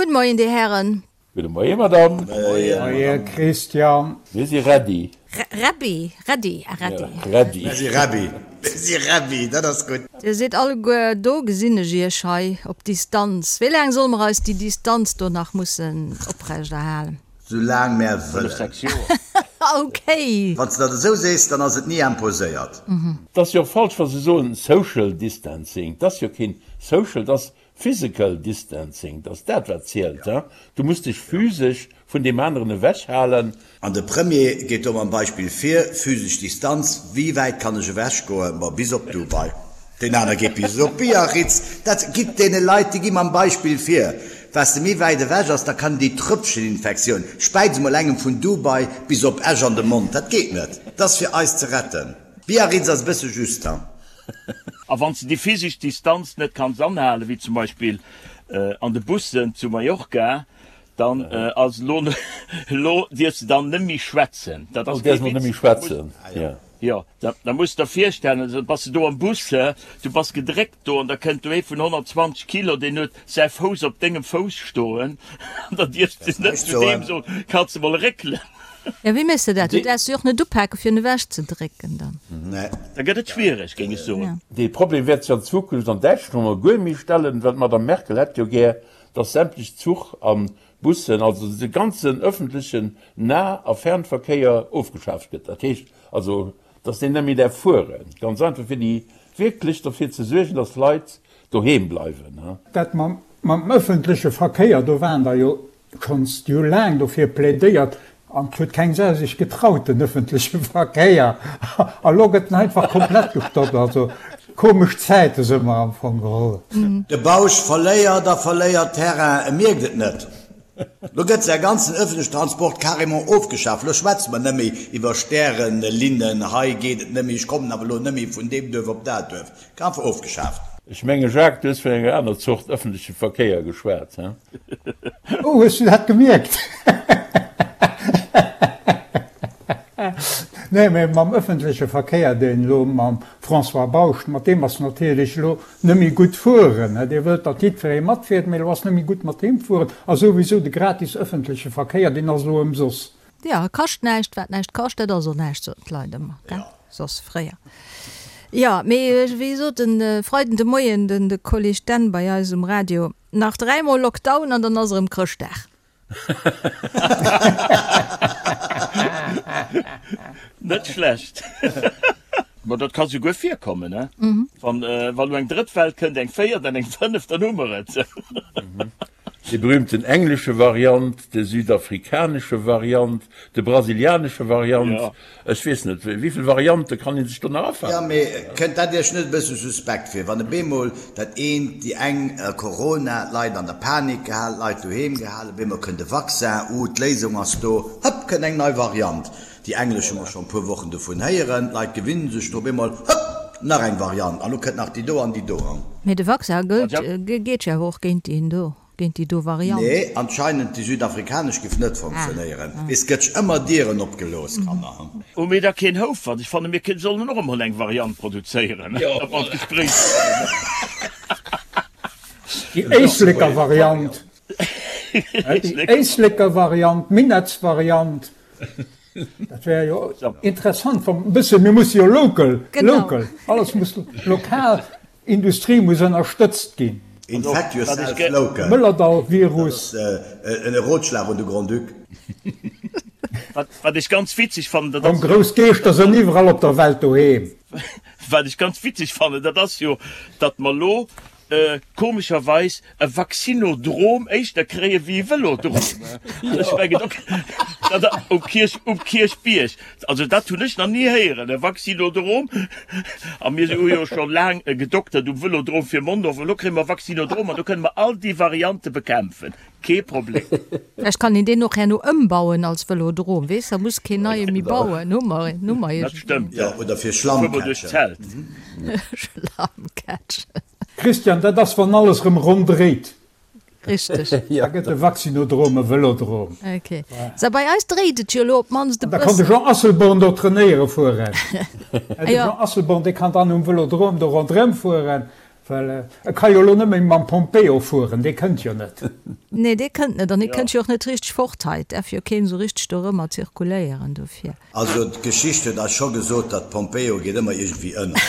Gudde Moien, Dir Hären. Gudde Moien, Madame. Moie Christian. Mir si ready. Rebbi, ready, ah ready. Ready. Mir si rebbi. Mir si rebbi, dat ass gutt. Dir sidd alleguer do, gesinn ech Iech hei op Distanz. Wéi laang solle mer eis déi Distanz do nach mussen oprechterhalen? Sou laang mär wëllen. Fënnef, sechs Joer. Okay. Wann s de dat esou sees, dann ass et ni imposéiert. Et ass jo och falsch, wa se soen Social Distancing. Et ass jo keen Social, et ass Physical Distancing, 't ass dat wat zielt, hein. Du muss dech physesch vun deem aneren ewech halen. An de Premier geet do mam Beispill vir, physesch Distanz, wéi wäit kann ech ewech goen? Ma bis op Dubai. Deen aner geet bis op Biarritz. Dat gitt deene Leit, déi gi mam Beispill vir. Wat s de méi wäit ewech ass, da kann déi Tröpfcheninfektioun, späiz emol engem vun Dubai bis op Esch an de Mond, dat geet net. 't ass fir eis ze retten. Biarritz ass e bësse just, hein. A wann s de déi physesch Distanz net kanns anhalen, wéi zum Beispill an de Bussen zu Mallorca, dann ass elo, elo dierfs de dann net méi schwätzen. Dat ass kee Witz. Jo, da muss de der virstellen, da bass de do am Bus, du bass gedréckt do an da kënnt do ee vun 120 Kilo, deen huet säi Fouss op dengem Fouss stoen an da dierfs de net zu deem soen, Kanns de mol réckelen? Jo, wéi méchs de dat? Du däerfs se jo och net upaken, fir en ewech ze drécken dann. Da gëtt et schwiereg, géing ech soen. Dee Problem wäert sech an Zukunft an Däitschland emol guer méi stellen, well d'Madame Merkel hätt jo gär, datt sämtlech Zuch a Bussen, also de ganzen ëffentlechen Nah a Fernverkéier ofgeschaaft gëtt. Dat heescht also, datt deen net méi däerf fueren. Ganz einfach, fir déi wierklech derfir ze suergen, datt d'Leit doheem bleiwen. Dat mam ëffentleche Verkéier, do waren der jo Schonns jo laang dofir plädéiert an et huet keng Sau sech getraut den ëffentleche Verkéier a lo gëtt en einfach komplett gestoppt. Also komesch Zäite së mer am Fong geholl. De Bausch verléiert a verléiert Terrain, e mierkt et net. Lo gëtt säi ganzen ëffentlechen Transport carrément ofgeschaf. Lo schwätze mer nëmme iwwer Stärenlinnen, hei geet et nëmme, ech kommen awer elo nëmme vun deem Duerf op dat Duerf. Einfach ofgeschaaft. Ech menge Jacques, du hues vun enger aner Zort ëffentleche Verkéier geschwat, he? Oh, hues du dat gemierkt? Nee, mee mam ëffentleche Verkéier, deen elo mam François Bausch, mat deem ass natierlech elo nëmme gutt fueren. Dir wëllt, datt jiddweree matfiert, mee elo ass nëmme gutt mat deem fueren. A souwisou de gratis ëffentleche Verkéier, deen ass elo ëmsoss. Jo, e kascht näischt. Wat näischt kascht, dat ass och näischt, soten d'Leit ëmmer, gell? Soss fréier. Jo, mee wéi sot de Freiden de Moien den de Kolleg Dan bei eis um Radio, nach dräimol Lockdown an dann ass erëm Chrëschtdag. Net schlecht. Ma dat ka souguer virkommen, ne? Wann elo eng drëtt Well kënnt, eng véiert an eng fënneft, dann hu mer et. Déi berühmten englesche Variant, de südafrikanesche Variant, de brasilianesche Variant, ech weess net, wéivill Variante kann ee sech do nach Jo, afalen? mee kënnt dat Iech net e bësse suspekt vir, wann e bemol dat eent, déi eng Corona, d'Leit an der Panik gehalen, d'Leit doheem gehalen, bemol kënnt e Vaccin, uh, d'Léisung ass do, hëpp, kënnt eng nei Variant. Déi englesch hu mer scho e puer Wochen dovun héieren, d'Leit gewinne sech dru, bemol, hëpp, nach eng Variant, an lo kënnt nach déi do an déi do. Mee de Vaccin gëllt, geet jo awer och géint deen do, géint déi do Variant. Nee, anscheinend déi südafrikanesch giff net funktionéieren. Weess, gëtt ëmmer Dieren opgelooss, Kanner. Hu mir da keen Houfert? Ech fanne mir sollen och emol eng Variant produzéieren, datt mer an d'Gespréich kommen. Déi Éisleker Variant. Déi Éisleker Variant, d'Minettsvariant. Dat wär jo interessant, wann e bësse, mir musse jo local, local, alles muss lokal, Industrie muss ënnerstëtzt ginn. Infect yourself local. Mëllerdall-Virus. Dat ass en Rotschlag un de Grand-Duc. Wat ech ganz witzeg fannen, dat ass. Komm, grouss Geeschter sënn iwwerall op der Welt doheem. Wat ech ganz witzeg fannen, dat ass jo, datt mer elo komescherweis e Vaccinodrom éischter kréie wéi e Vëlodrom. Ech mengen do dat um Kierch um Kierchbierg, also dat hunn ech nach ni héieren, e Vaccinodrom. A mir hu jo scho laang gedoktert um Vëlodrom fir Mondorf, elo kréie mer Vaccinodrom an do kënne mer all déi Variante bekämpfen. Kee Problem. Vläicht kann een deen och herno ëmbauen als Vëlodrom, weess, da muss keen neie méi bauen, hu mer een, hu mer Dat iergendwéi. stëmmt, Jo, oder fir Fuer mer duerch Schlammcatchen. d'Zelt. Schlammcatchen. Christian, dat ass wann alles rëm ronn dréit. Richteg. Da gëtt de Vaccinodrom e Vëlodrom. Ok. Sou, bei eis dréit et jo elo op d'mannst e An da kann de bëssen. Jean Asselborn do trainéiere fueren. De Jean Asselborn, dee kann dann um Vëlodrom do ronderëm fueren. Well e ka jo elo net méi mam Pompeo fueren, dee kënnt jo net. Nee, dee kënnt net an hie kënnt jo och net richteg fort hei. Et däerf jo keen esou richteg dorëmmer zirkuléieren dofir. Also d'Geschicht huet eis scho gesot, datt Pompeo geet ëmmer iergendwéi ënner.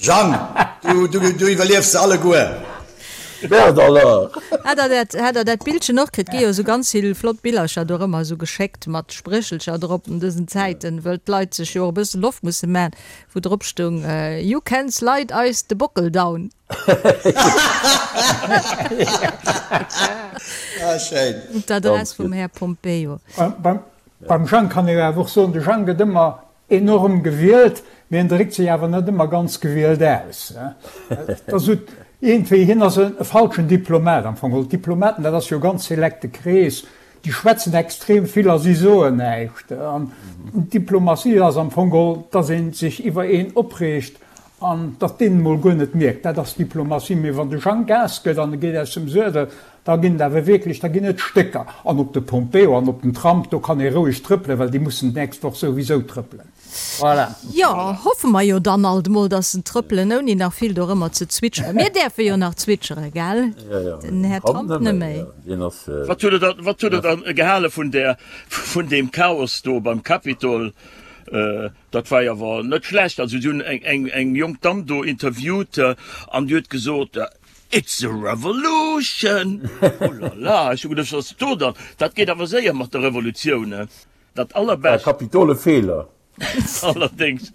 Jang, du, du, du iwwerliefs se alleguer. Merde alors! Hat der dat, hat der dat Bildchen och kritt? Gi jo esou ganz vill flott Billercher dorëmmer esou geschéckt mat Spréchelcher drop an dësen Zäiten, wëll d'Leit sech jo och e bësse Loft musse man. Wou drop stoung, You can slide eis de Bockel down. Ah, schéin. D'Adress vum Här Pompeo. Beim Jang kann ee jo awer och soen, de Jang gëtt ëmmer enorm gewielt, mee en dréckt sech awer net ëmmer ganz gewielt aus. Et ass esou iergendwéi, hien ass e falschen Diplomat am Fong. D'Diplomaten, dat ass jo e ganz selekte Krees, Déi schwätzen extrem vill a si soen näischt. An Diplomatie ass am Fong geholl, dass ee sech iwwer een opreegt an datt deen emol guer net mierkt. Dat ass Diplomatie. Mee wann de Jang Gas gëtt an e geet aus dem Suedel, da ginn et awer wierklech, da ginn et Stécker. An op de Pompeo an op den Trump, do kann ee roueg trëppelen, well déi mussen d'nächst Woch souwisou trëppelen. Voilà. Jo, hoffe mer jo dann alt emol, dass se trëppelen, ouni nach vill dorëmmer ze zwitscheren. Mir däerfe jo nach zwitscheren, gell? Den Här Trump net méi. Wat hutt Der, wat hutt Der dann gehale vun där, vun deem Chaos do beim Capitol? Dat war jo awer net schlecht. Also si hunn eng, eng, eng jonk Damm do interviewt an déi huet gesot, It's a revolution! Oh la la, ech hu geduecht, wat ass do dann? Dat geet awer séier mat der Revolutioun. Dat allerbescht. Kapitole Feeler. Allerdéngs.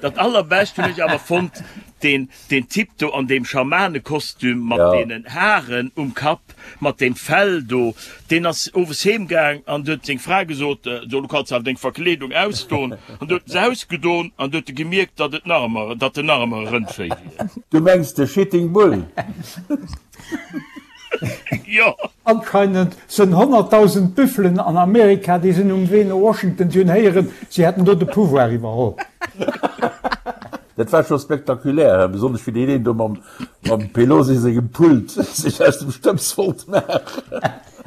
Dat allerbescht hunn ech awer fonnt, deen, deen Typ do an deem Schamanekostüm mat deenen Haren um Kapp, mat deem Fell do, deen ass owes heem gaang an huet seng Fra gesot, So, lo kanns de awer deng Verkleedung ausdon. An du huet en se ausgedon an du huet e gemierkt, datt et nach ëmmer, datt en nach ëmmer e Rëndvéi wier. Du mengs de Shitting Bull? Jo. Anscheinend sënn 100.000 Büffelen an Amerika, déi sinn um Wee no Washington, si hunn héieren, si hätten do de Pouvoir iwwerholl. Dat war scho spektakulär, besonnesch wéi deen een do mam Pelosi sengem Pult sech aus dem Stëbs wollt maachen.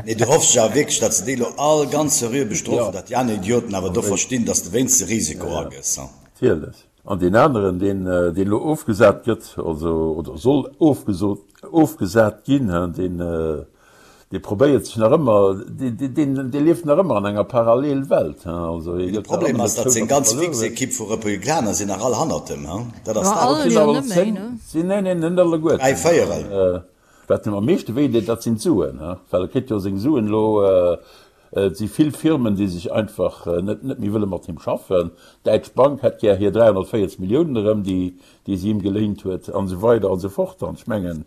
Nee, du hoffs jo awer wierklech, datt se déi elo all ganz seriö bestrofen, datt déi aner Idioten awer do verstinn, datt s de wéinst de Risiko agëss. Natierlech. An deen aneren, deen, deen elo ofgesat gëtt, also, oder soll ofgesot, ofgesat ginn, deen, dee probéiert sech nach ëmmer, deen, deen, dee lieft nach ëmmer an enger Parallelwelt, also hie De gëtt nach Problem ëmmer ass, net datt zou, seng datt e ganz verluer fix huet. Ekipp vu Republikaner sinn nach all hannert em, dat ass Jo, dat. all Sinn jo awer net méi, 10, ne? sinn, nee, nee, net alleguerten. Dräi Véierel. Wat him am meeschte wéi deet, dat sinn d'Suen, well e kritt jo seng Suen elo Et si vill Firmen, déi sech einfach net net méi wëlle mat him schaffen. D'Däitsch Bank hätt gär hir 340 Milliounen erëm, déi déi si him geléint huet, an esou weider an esou fort. An ech mengen,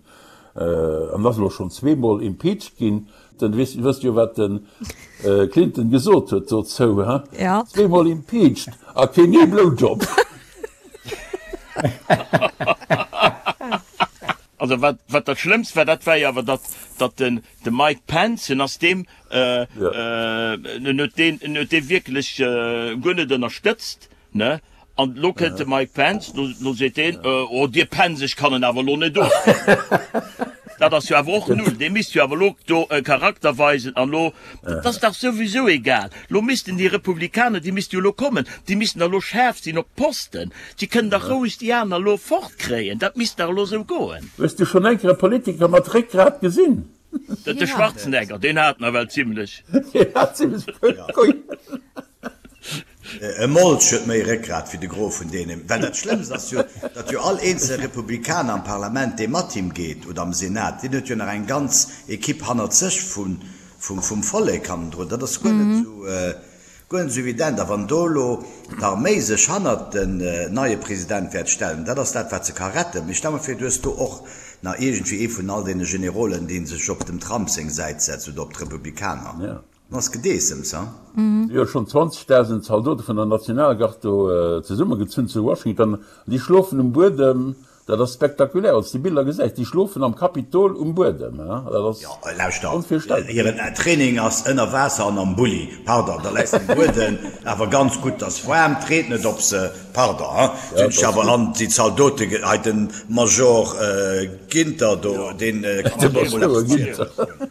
an ass elo schonn zweemol impeached ginn. Den, wësst wësst jo, wat de Clinton gesot huet dozou, he? Ja. Zweemol impeached a keen ee Blowjob. Also wat wat dat Schlëmmst war, dat war jo awer, datt datt den de Mike Pence, en ass deem, en huet deen, en huet dee wierklech guer net ënnerstëtzt, ne? An elo kënnt de Mike Pence, lo lo seet deen, Oh Dir Pence, ech kann en awer elo net ofwielen. Dat ass jo awer och null. Dee misst jo awer elo do e Charakter weisen an elo, dat ass dach souwisou egal. Lo missten déi Republikaner, déi misste jo elo kommen, déi missten da elo schaarf sinn op d'Posten. Si kënnen dach roueg déi aner elo fortkréien. Dat misst dach elo esou goen. Hues du schonn eng Kéier e Politiker mat Réckgrat gesinn? De Schwarzenegger, deen hat nawell zimlech. Deen hat zimlech Keulen. E Molch huet méi Réckgrat wéi de Gros vun deenen. Well dat Schlëmmst ass jo, datt jo all eenzel Republikaner am Parlament, dee mat him geet, oder am Senat, deen huet jo nach eng ganz Equipe hannert sech vum Vollek hannendrun. Dat ass guer net esou. Guer net esou evident. A wann do elo d'Arméi sech hannert den neie President wäert stellen, dat ass dat, wat se ka retten. Mee stell mer vir, du hues do och nach iergendwéi ee vun all deene Generolen, dee sech op dem Trump seng Säit setzt oder op d'Republikaner. Dann ass Gedeessems, ha? Si hu schonn 20.000 Zaldote vun der Nationalgard do zesummegezunn zu Washington. An déi schlofen um Buedem. Dat ass spektakulär, wann s de déi Biller gesäis. Déi schlofen am Kapitol um Buedem. Dat ass Jo, lauschter, onvirstellbar. hiren Training ass ënner Waasser an am Bulli. Pardon, da läis de um Buedem awer ganz gutt, 't ass waarm, 't reent net op se. Pardon, hein, Ja, sinn dat ech ass awer gutt. an déi Zaldote, hei de Major Ginter do, deen kann De ech och emol Major eppes Ginter. zielen.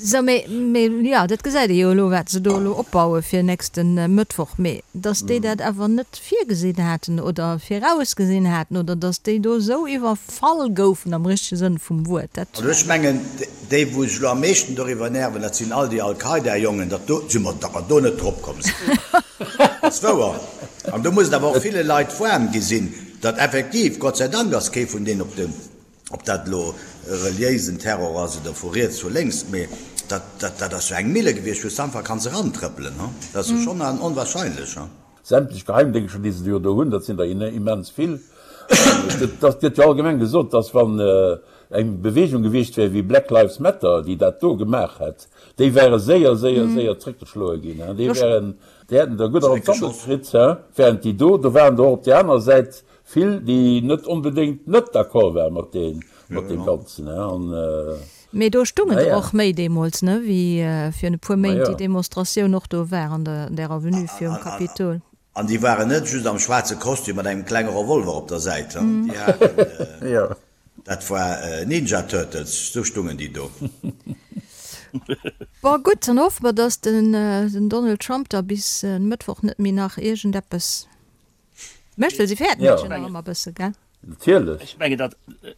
Sou, mee, mee jo, dat gesäit ee jo elo, wat se do elo opbaue fir nächste Mëttwoch. Mee datt déi dat awer net virgesinn haten oder virausgesinn haten oder datt déi do esou iwwerfall goufen am richtege Sënn vum Wuert, dat. Also ech mengen, déi wou sech elo am meeschten doriwwer nerven, dat sinn all déi Al-Qaida-Jongen, datt do, si mer, datt mer do net drop komm sinn. Dat ass wouer. An do muss et awer och ville Leit waarm gi sinn, datt effektiv, Gott sei Dank ass kee vun deenen op de, Ob dat elo reliéisen Terror ass oder vu riets, vu lénks, mee dat, dat, dat ass jo eng Mille gewiescht, wou s de einfach kanns erantrëppelen, hu. Dat ass jo schonn onwahrscheinlech, hu. Sämtlech Geheimdéngschter, déi se jo do hunn, dat sinn der immens vill. Et gëtt jo allgemeng gesot, datt wann eng Beweegung gewiescht wär wéi Black Lives Matter, déi dat do gemaach hätt, déi wäre séier, séier, séier zréckgeschloe ginn. Déi wären, déi hätten der gutt an d'Sammel kritt, während déi do, do waren der och op där anerer Säit Vill, déi net onbedéngt net d'accord waren mat deem, mat deem Ganzen, hein, an. Mee do stungen der och méi deemools, ne, wéi virun e puer Méint déi Demonstratioun och do war an der, an där Avenue virum Kapitol. An déi waren net just am schwaarze Kostüm mat engem klenge Revolver op der Säit, hein, déi haten, dat war Ninja Turtles, sou stungen déi do. Bon, gutt, dann hoffe mer, dass den Donald Trump da bis e Mëttwoch net méi nach iergendeppes Mécht, well si fäerten dat jo nach ëmmer e bësse, gell? Natierlech. Ech mengen, dat,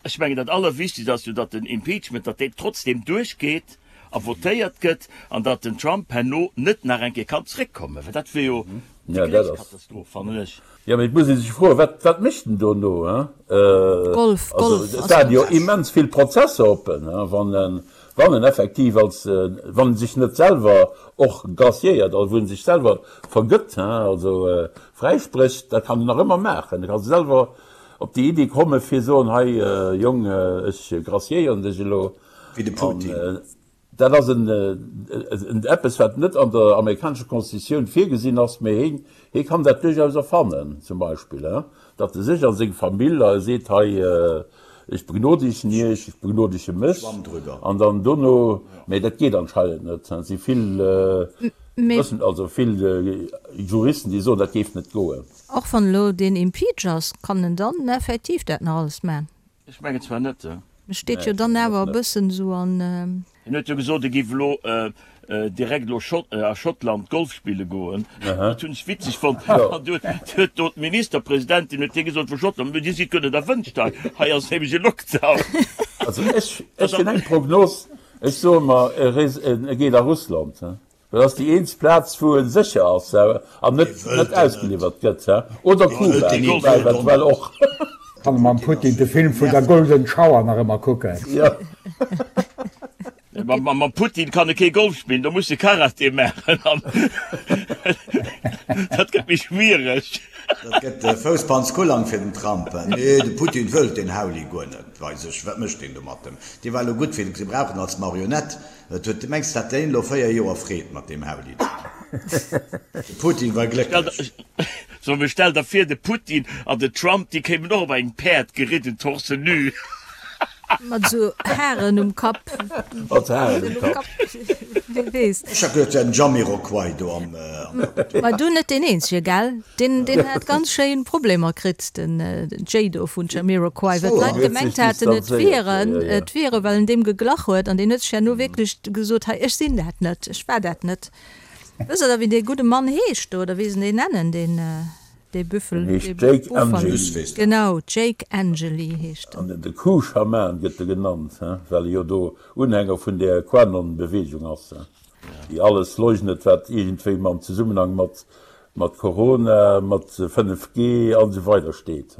ech mengen, dat Allerwichtegst ass jo, datt den Impeachment, datt deen trotzdem duerchgeet a votéiert gëtt an datt den Trump herno net nach eng Kéier kann zréckkommen, well dat wier jo déi gréisst Katastroph, fannen ech. Jo, mee et muss ee sech froen, wat, wat mécht en dono, hein? Golf, Also, Golf et ass waren jo ganz. immens vill Prozesser oppen, hein, wann en, wann en effektiv als, wann en sech net selwer och graciéiert, also wou en sech selwer vergëtt, hein, also fräisprécht, dat kann en nach ëmmer maachen. E ka selwer op déi Iddi komme fir soen, hei Jong, ech graciéieren dech elo. Wéi de Putin. Dat ass en eppes, wat net an der amerikanescher Constitutioun virgesinn ass, mee heen, hee kann dat duerchaus erfannen, zum Beispill, hein, datt e sech a seng Famill a seet, hei, ech begnodegen Iech, ech begnodege mech, an dann dono, mee dat geet anscheinend net, et si vill Wëssen, also vill Juristen, déi soen, dat géif net goen. Och wann elo deen impeach ass, kann en dann effektiv dat nach alles man? Ech mengen zwar net. E steet jo dann awer e bëssen esou an. Hien huet jo gesot, e géif elo direkt elo a Schottland Golf spille goen. Dat hunn ech witzeg fonnt. An du huet do d'Ministerpresidentin huet hie gesot vu Schottland, Mee Dir sidd guer net erwënscht hei, hei ass nämlech e Lockdown. Also ech hunn eng Prognos, ech soe mer, e geet a Russland. Dat ass déi eenzeg Plaz, wou e sécher ass an net ausgeliwwert gëtt. Oder Kuba, woubäi eventuell och. Kann e mam Putin de Film vun der Golden Shower nach ëmmer kucken. Mam Putin kann e kee Golf spillen, do muss e Karate maachen an dat gëtt méi schwiereg. Dat gëtt Fousspanzkulang fir den Trump. Nee, de Putin wëllt deen Hauli guer net bei sech. Wat mécht deen do mat em? Dee war elo gutt fir ze brauchen als Marionett. Et huet, mengs de, hat deen elo 4 Joer Freed mat deem Hauli do? De Putin war glécklech. So, mee stell der vir, de Putin an de Trump, déi kéimen och op engem Päerd geridden, torse nu. Mat esou Haren um Kapp. Mat Haren um Kapp. Wie weess. Ech hat geduet, et wär den Jamiroquai do am Kapitol. Ma du net deen eenzege, gell? Deen, deen hat ganz schéin Problemer kritt, den Jay do vun Jamiroquai, well d'Leit gemengt haten, et wier en, et wier e, well en deem geglach huet. An deen huet sech herno wierklech gesot, Hei, ech sinn dat net, ech war dat net. Wësst Der da, wéi dee gudde Mann heescht do, oder wéi se deen nennen, deen, dee Büffel, En heescht dee Jake Buffalo? Angeli. Genau, Jake Angeli heescht en. An de Q-Schaman gëtt e genannt, well e jo do Unhänger vun där QAnon-Beweegung ass, déi alles leugnet, wat iergendwéi mam Zesummenhang mat Mat Corona, mat 5G an esou weider steet.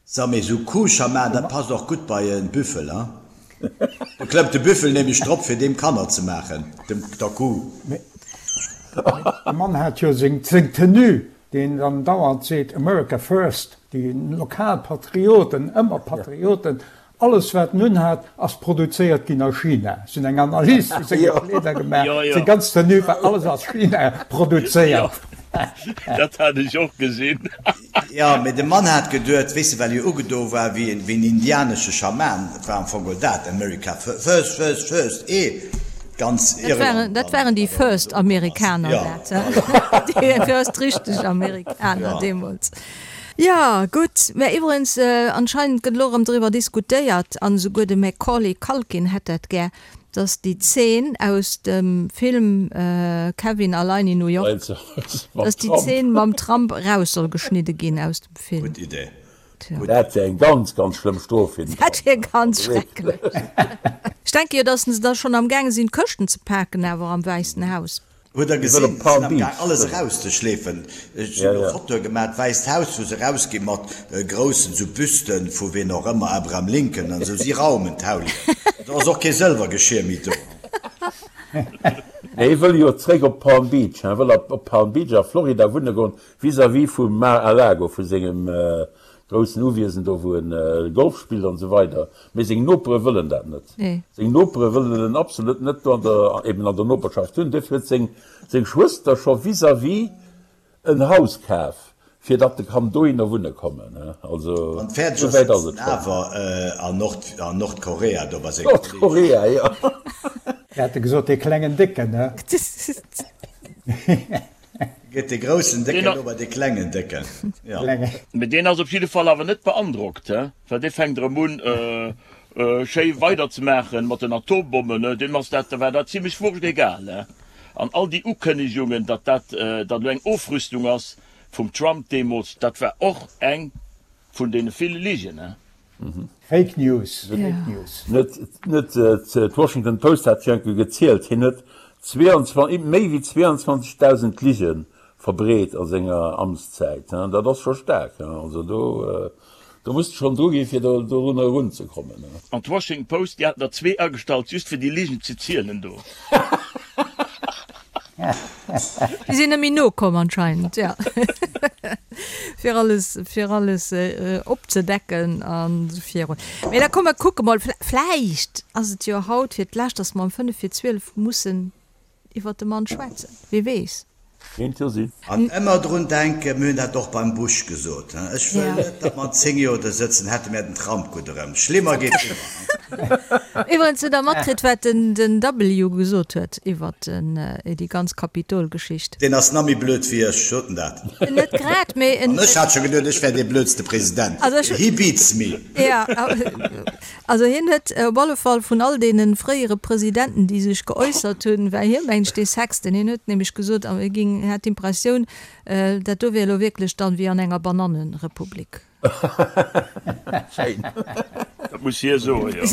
Sa mee sou Kuhschaman, dat passt och gutt bei en Büffel, hein? Do klëmmt de Büffel nämlech drop fir deem Kanner ze maachen, dem der Kuh. Mee de Mann hat jo seng Tenue, deen dann dauernd seet America first, déi lokal Patrioten, ëmmer Patrioten, Alles wat en unhat ass produzéiert ginn a China. Ech hunn eng Analys vu senge Kleeder gemaach, seng ganz Tenue war alles a China produzéiert. Dat hat ech och gesinn. Jo, mee de Mann hat geduet, weess de, well hie ugedo war wéi en indianesche Schaman, et war am Fong geholl dat, America first, first, first, ee ganz Irland. Dat waren déi first Amerikaner, dat, déi first richteg Amerikaner deemools. Jo, gutt. Mä iwwregens, anscheinend gëtt elo erëm driwwer diskutéiert, an esouguer de Macaulay Culkin hätt dat gär. Dass déi Zeen aus dem Film Kevin allein in New York, dass déi Zeen mam Trump eraus soll geschnidde ginn aus dem Film. Gutt Idee. Dat wär eng ganz, ganz schlëmm Strof fir den Trump. Dat wier ganz schrecklech. Ech denke jo, dass se da schonn am gaange sinn, d'Këschten ze paken awer am Wäissen Haus. Hutt der gesinn, se sinn am Gaang alles erauszeschleefen. Ech hunn elo Fotoe gemaach, d'Wäisst Haus, wou se erausgi mat groussen esou Büsten vu ween och ëmmer, Abraham Lincoln an esou. Si raumen d'Haulien. Do ass och kee Sëlwergeschier méi do. Nee, hie wëll jo zréck op Palm Beach. Hie wëll op Palm Beach a Florida wunne goen, vis-à-vis vum Mar-a-Lago, vu sengem groussen Uwiesen do, wou en Golf spillt an esou weider. Mee seng Nopere wëllen dat net. Seng Nopere wëllen en absolut net do an der, eben an der Noperschaft hunn. Duerfir huet seng, seng Schwëster scho vis-à-vis en Haus kaf, fir datt e kann dohinner wunne kommen. Also, Wann fäerdeg esou ass, wäit ass sëtzt et en schonn. awer an Nord, an Nordkorea do bei senge Kolleegen. Nordkorea, jo. Mir hate gesot, dee klengen Décken, ne? Geet dee groussen Décken elo bei dee klengen Décken? Jo. Mee deen ass op jidde Fall awer net beandrockt, he, well dee fänkt erëm un, schéi weiderzemaachen mat den Atombommen, he. Deem ass dat, war dat zimlech wurscht egal, he. An all déi Ukënnegungen, datt dat, datt elo eng Ofrüstung ass vum Trump deemools, dat war och eng vun deene ville Ligen, he. Fake News, Fake News. Net, net, d'Washington Post hat jo enke gezielt, hien huet 22, méi wéi 22.000 Lige verbreet a senger Amtszäit. Dat ass scho staark. Also do, do muss de schonn dru ginn, fir do dorunner erunzekommen. An d'Washington Post, déi haten der zwee agestallt, just fir déi Ligen ze zielen do. Déi sinn net méi nokomm anscheinend, jo. Fir alles, fir alles opzedecken an esou virun. Mee da komm mer kucke mol, vläicht ass et jo haut fir d'lescht, dass mer um 5 vir 12 mussen iwwert de Mann schwätzen. Wie weess? Kéint jo sinn. An ëmmer drun denken, mir hunn dat och beim Bush gesot, ech wëll net, datt mer an 10 Joer do sëtzen, hätte mär den Trump gutt erëm. Schlimmer geet ëmmer. Iwwerens, hutt Der matkritt, wat den W. gesot huet iwwert déi ganz Kapitol-Geschicht? Deen ass nach méi blöd wéi ech, sot en dat? Net grad, mee en. An ech hat scho geduet, ech wär dee blödste President. He beats me. Jo. Also hien huet op alle Fall vun all deene fréiere Presidenten, déi sech geäussert hunn, war hie mengt ech dee Sechsten. Hien huet nämlech gesot, hie géing, hätt d'Impressioun, dat do wier elo wierklech dann wéi an enger Banannenrepublik. Schéin. Dat muss hie soen, jo.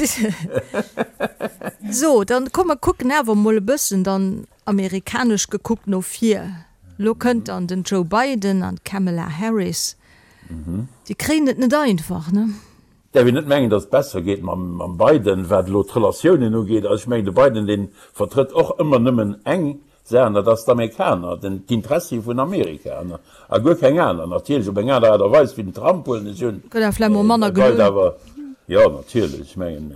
So, dann komm mer kucken awer emol e bëssen dann amerikanesch gekuckt no vir. Elo kënnt dann den Joe Biden an d'Kamala Harris. Déi kréien et net einfach, ne? Däerf een net mengen, datt et besser geet mam Biden, wat elo d'Relatiounen ugeet. Also ech mengen, de Biden, dee vertrëtt och ëmmer nëmmen eng Saach, an dat ass d'Amerikaner, d'Intressie vun Amerika a guer keng aner. Natierlech op eng aner Aart a Weis wéi den Trump, huelen ech un. Gëtt awer vläicht mol manner geloun. Awer, jo, natierlech, ech mengen,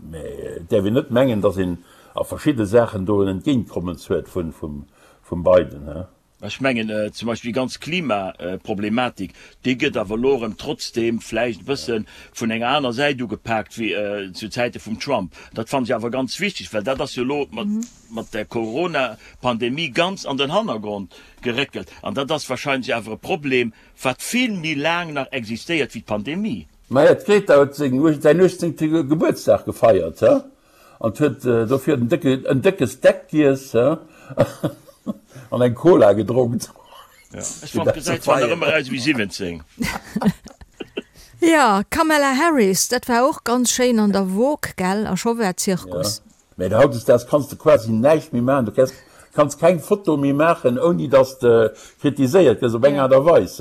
mä et däerf een net mengen, datt een a verschidde Saachen do en Entgéintkommens huet vum Biden. Ech mengen zum Beispill déi ganz Klimaproblematik, déi gëtt awer elo erëm trotzdeem vläicht e bësse vun enger aner Säit ugepaakt wéi zu Zäite vum Trump. Dat fannen ech awer ganz wichteg, well dat ass jo elo mat der Corona-Pandemie ganz an den Hannergrond geréckelt. An dat ass wahrscheinlech awer e Problem, wat vill méi laang nach existéiert wéi d'Pandemie. Maja, d'Greta huet säin 18. Gebuertsdag gefeiert, he? An huet dofir en décke, en décke Steak giess, he? An eng Cola gedronkt. Ja, ech fand gesäit zwar nach ëmmer aus wéi 17. Ja, Kamala Harris, dat war och ganz schéin an der Vogue, gell? A scho war Zirkus. Ja, mä hautdesdaags kanns de quasi näischt méi maachen. Du kes, kanns keng Foto méi maachen, ouni dass de kritiséiert gëss op eng Aart a Weis.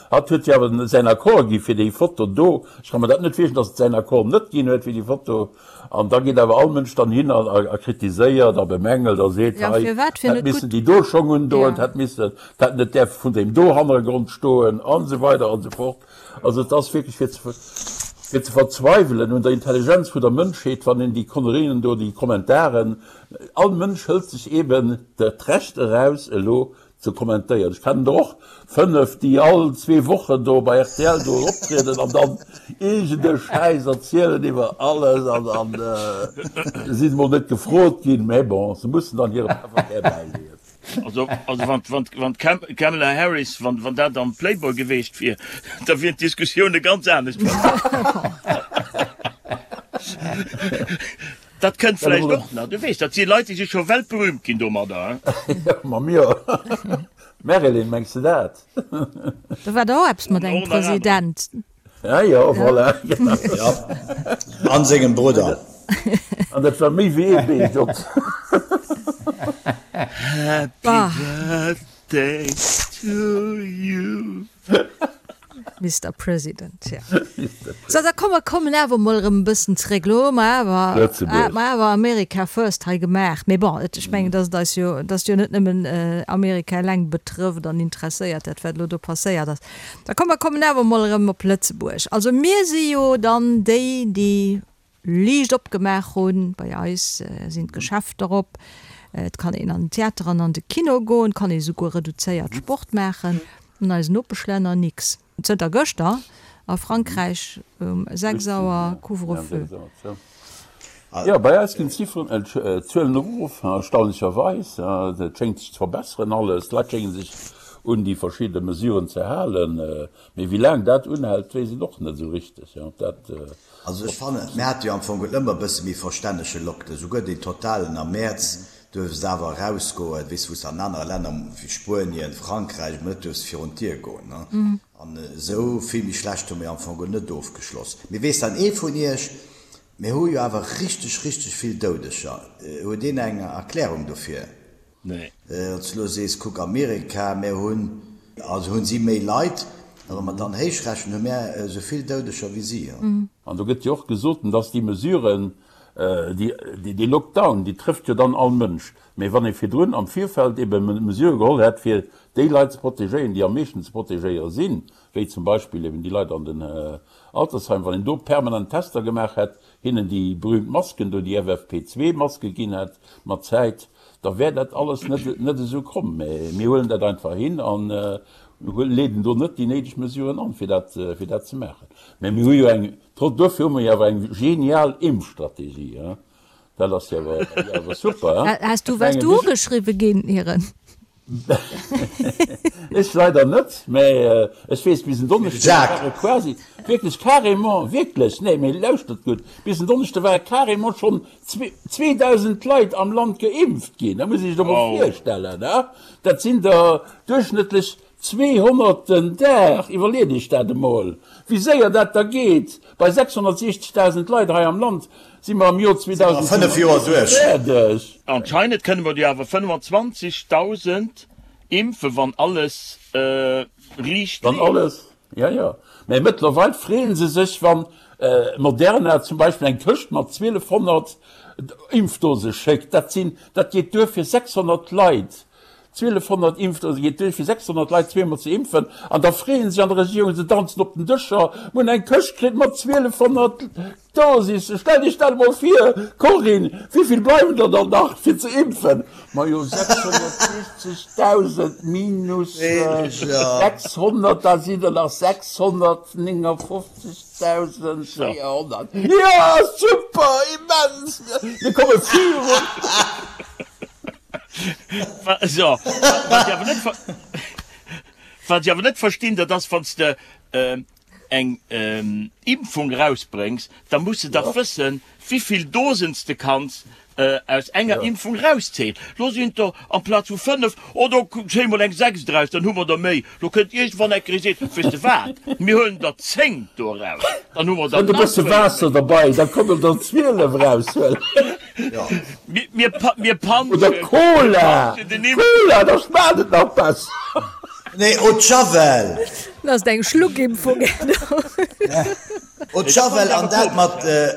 Hatt huet jo awer säin Accord gi fir déi Foto do. Ech ka mer dat net virstellen, dass et säin Accord net ginn huet fir déi Foto. An da geet awer all Mënsch dann hin a kritiséiert a bemängelt a seet, Ja, hei firwat fir hätt net missen gutt. déi do Schong undoen, Ja. hätt missen, hätt net däerfe vun deem do Hannergrond stoen an esou weider an esou fort. Also et ass wierklech fir ze fir ze verzweiwelen un der Intelligenz vun der Mënschheet, wann een déi Konnerien do, déi Kommentaren, all Mënsch hëlt sech eeben d'Recht eraus elo Ze kommentéieren. Ech kennen der och 5, déi all zwee Wochen do bei rtl do optrieden an dann iergend e Schäiss erzielen iwwer alles an an si mol net gefrot ginn, mä bon, se mussen dann hire Pefferkär bäileeën. Also also wann wann wann d'Kamala Harris, wann wann dat am Playboy geweecht wier, da wieren d'Diskussioune ganz anescht verlaf. Dat kënnt vläicht och nach, du weess, dat si Leit, déi si scho weltberühmt ginn domadder. Ma mir, Marilyn, mengs de dat? Do war der och eppes mat engem President. Ja, jo, voilà, genau. Ja, an sengem Brudder. An dat war méi wéi ee Beet op. Happy Birthday to you. Mister President, ja. So, da komm, mer kommen awer emol erëm e bëssen zréck. Elo hu mer awer, Lëtzebuerg. mer awer America first hei gemaach. Mee bon, et, ech mengen, dass et eis jo, dass jo net nëmmen Amerika eleng betrëfft an interesséiert, dat wat elo do passéiert ass. Da komm, mer kommen awer emol erëm op Lëtzebuerg. Also mir si jo dann déi, déi liicht opgemaach hunn. Bei eis sinn d'Geschäfter op, et kann een an den Theater an an de Kino goen, et kann ee souguer reduzéiert Sport maachen. An eisen Nopeschlänner nix. Zënter gëschter a Frankräich um 6 Auer Couvre-feu. Jo, bei eis ginn d'Zifferen, d'Zuelen erof, erstaunlecherweis. Et schéngt sech ze verbesseren alles. D'Leit schénge sech un déi verschidde Mesuren ze halen. Mee wéi laang dat unhält, weess een och net esou richteg. Dat. Also ech fannen, mir hate jo am Fong et ëmmer e bësse méi verstännege Lockdown, souguer deen totalen am Mäerz duerfs de awer erausgoen, weess wou s de an anere Länner wéi Spuenien, Frankräich emol net duerfs virun d'Dier goen, ne? An esou vill méi schlecht hu mir am Fong net ofgeschloss. Mee weess dann ee vun iech, mir hu jo awer richteg, richteg vill Doudeger, huet een eng Erklärung dofir? Nee. Wann s de elo sees, kuck Amerika, mär hunn, also hunn si méi Leit, a wa mer dann héichrechnen, hu mär esou vill Doudeger wéi si. An do gëtt jo och gesot, dass déi Mesuren, déi, dee Lockdown, déi trëfft jo dann all Mënsch. Mä wann ee virdrun am Virfeld ebe Mesurë geholl hätt, fir déi Leit ze protegéieren, déi am meeschten ze protegéiere sinn, wéi zum Beispill eben déi Leit an den Altersheimen, wann een do permanent Tester gemaach hätt, hinnen déi berühmt Masken do, déi FFP2-Maske ginn hätt mat Zäit, da wär dat alles net net esou komm. Mä mir huelen dat einfach hin an leeden do net déi néideg Mesuren an, fir dat, fir dat ze maachen. Mä mir hu jo eng, trotz, duerfir hu mer jo awer eng genial Impfstrategie, hein. Dat ass jo awer, awer super, hein. Has du, waars du ugeschriwwe ginn, Iren? Ech leider net, mä ech weess, bis en Donneschde ware quasi, wierklech carrément, wierklech, nee, mee lauschtert gutt, bis en Donneschde ware carrément schonn 2.000 Leit am Land geimpft ginn. Dat muss ee sech doch mol virstellen, he? Dat sinn der duerchschnëttlech 200 den Dag. Iwwerleet Iech dat emol, wéi séier dat da geet. Bei 660.000 Leit hei am Land si mer am Joer 2035 fäerdeg. Anscheinend kënne mer jo awer 25.000 impfen, wann alles riicht Wann alles, jo, jo. Mä mëttlerweil freeë se sech, wann Moderna zum Beispill eng Këscht mat 1.200 Impfdose schéckt. Dat sinn, dat geet duer fir 600 Leit. 1.200 Impfdose geet duer fir 600 Leit zweemol ze impfen. An da freeë sech an der Regierung, se danzen op den Dëscher, mir hunn eng Këscht kritt mat 1.200 Dosisse. Stellt Iech dat emol vir, Corinne, wéivill bleiwen der dann nach fir ze impfen? Majo 660.000 minus 600, da sinn der nach 659.400. Jo, super, immens, mir komme virun. So, wat ech awer net, wat ech awer net verstinn, dat ass, wann s de eng Impfung erausbréngs, da muss de dach wëssen, wivill Dosen s de kanns aus enger Impfung erauszéien. Lo sinn et der amplaz vu 5, oh do zéie mol eng 6 draus, dann hu mer der méi. Lo kënnt iergendwann eng Kéier ee seet, weess de wat, mir huelen der 10 do eraus, dann hu mer der Kënnt e nach bësse 12 Waasser méi. derbei, da kommen der 12 eraushuelen. Mir, mir panschen. Oder Cola! Cola, da schmaacht et nach besser. Nee, Eau de Javel! Dat ass eng Schluckimpfung. Eau de Javel an dat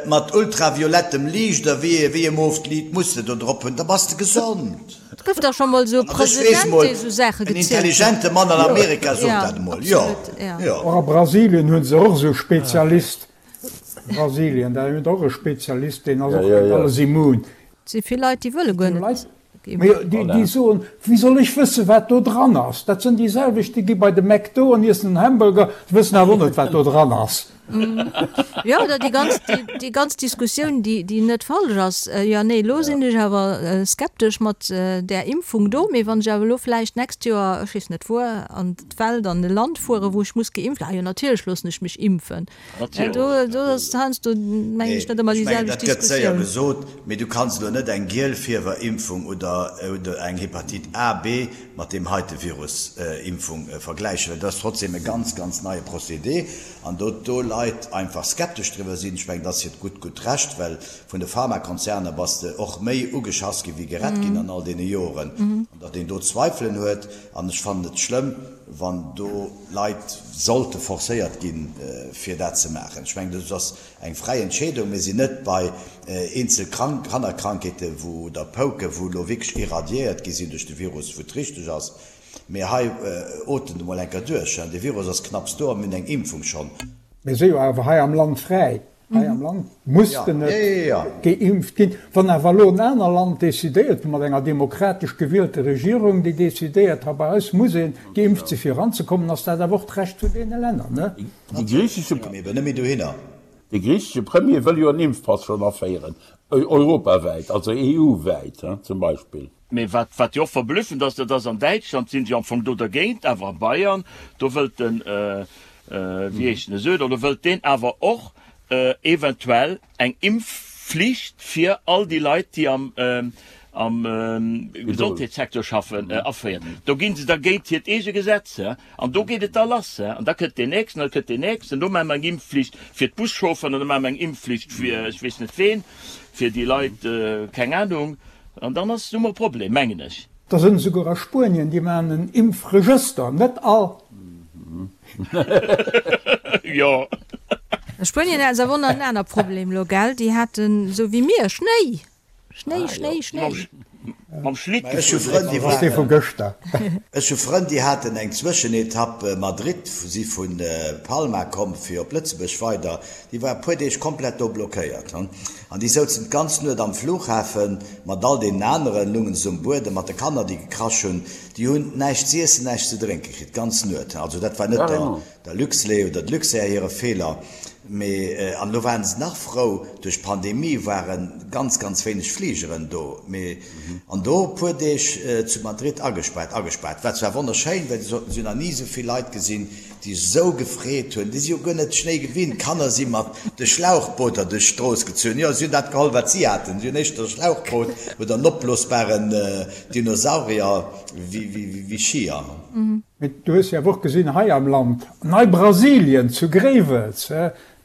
mat ultraviolettem Liicht oder wéi e mooft Liit muss de do drop hunn, da bass de gesond. Et gouf dach scho mol esou e President, dee esou Saache En gezielt huet. intelligente Mann an Amerika sot dat emol, jo, jo. Och a Brasilien hu se och esou Spezialist. Brasilien, da hunn och e Spezialist, deen ass och géint alles immun. Et si vill Leit, déi wëlle guer net geimpft. Mee déi soen, wéi soll ech wëssen, wat do dran ass? Dat sinn déi selwecht, déi gi bei de McDo an iessen en Hamburger, wëssen awer och net, wat do dran ass. Jo, oder déi ganz, déi ganz Diskussioun, déi, déi net falsch ass, Jo, nee, elo sinn ech awer skeptesch mat där Impfung do, mee wann ech awer elo vläicht d'nächst Joer, ech weess net wuer, an d'Welt, an e Land fueren, wou ech muss geimpft, ah jo, natierlech loossen ech mech impfen. Do, do ass heiansdo, mengen ech, net ëmmer déi selwecht Diskussioun. Dat gëtt séier gesot, mee du kanns elo net eng Gielfiewerimpfung oder, oder eng Hepatite A, B mat deem heite Virus, Impfung vergläichen, well dat ass trotzdem e ganz, ganz neie Procédé. An do do Leit einfach skeptesch driwwer sinn, ech mengen, dat ass hiert gutt, gutt Recht, well vun de Pharmakonzerner bass de och méi ugeschass ginn, wéi gerett ginn an all deene Joren, an datt een do Zweifelen huet. An ech fannen et schlëmm, wann do Leit sollte forcéiert ginn, fir dat ze maachen. Ech mengen, dat ass eng fräi Entscheedung. Mir sinn net bei eenzel Kannerkrankheete wou, oder Pouke wou elo wierklech irradiéiert gi sinn duerch de Virus, wou et richteg ass. Mee hei otemt emol enker duerch, de Virus ass knapps do a mir hunn eng Impfung schonn. Mir si jo awer hei am Land fräi. Hei am Land muss de net geimpft ginn. Wann awer elo en aner Land decidéiert, mat enger demokratesch gewielter Regierung, déi decidéiert, ha bei eis muss ee geimpft si fir eranzekommen, ass dat awer och d'Recht vun deene Länner, ne? De griichesche Premier wëll jo en Impfpass schonn aféieren, europawäit, also EU-wäit zum Beispill. Mee wat, wat jo och verblüffend ass, dat ass, an Däitschland sinn se jo am Fong do dergéint, awer a Bayern, do wëllt den, wéi heescht en, Söder, do wëllt deen awer och eventuell eng Impfflicht fir all déi Leit, déi am, am Gesondheetssecteur schaffen, aféieren. Do gi se da géint hiert eege Gesetz, an do geet et da lass. An da kënnt deen nächsten, an da kënnt deen nächsten, do maache mer eng Impfflicht fir d'Buschaufferen an da maache mer eng Impfflicht fir ech weess net ween, fir déi Leit, keng Anung. An dann ass, hu mer e Problem, mengen ech. Da sënn esouguer a Spuenien, déi maachen en Impfregëster, net all. Jo. A Spuenien haten se awer och nach en aner Problem elo, gell? Déi haten esou wéi mir Schnéi! Schnéi, Schnéi, Schnéi. Mam Schlitt Ech hu gefuer. Frënn, déi Ass dee vu waren, gëschter. ech hu Frënn, déi haten eng Zwëschenetapp Madrid, si vu Palma komm fir op Lëtzebuerg weider, déi war e puer Deeg komplett do blockéiert. An déi souzen d'ganz Nuet am Flughafen mat all deenen aneren, lungen se um Buedem mat de Kanner, déi gekrasch hunn. Déi hunn näischt z'iessen, näischt ze drénke kritt, d'ganz Nuet. Also dat war net der, der Luxlait oder de Luxair hire Feeler, mee, an elo waren se nach frou, duerch d'Pandemie ware ganz, ganz wéineg Fligeren do, mee, an do e puer Deeg zu Madrid agespaart, agespaart. War zwar wonnerschéin, well se soten, se hunn nach ni esou vill Leit gesinn, déi sou gefreet hunn, déi si jo guer net Schnéi gewinnt, d'Kanner si mat de Schlauchbooter duerch d'Strooss gezunn, jo, si hunn dat geholl, wat si haten, si hunn éischter e Schlauchboot oder en opblosbaren Dinosaurier wéi Skier. Mee du hues jo awer och gesinn hei am Land, Nei-Brasilien zu Gréiwels,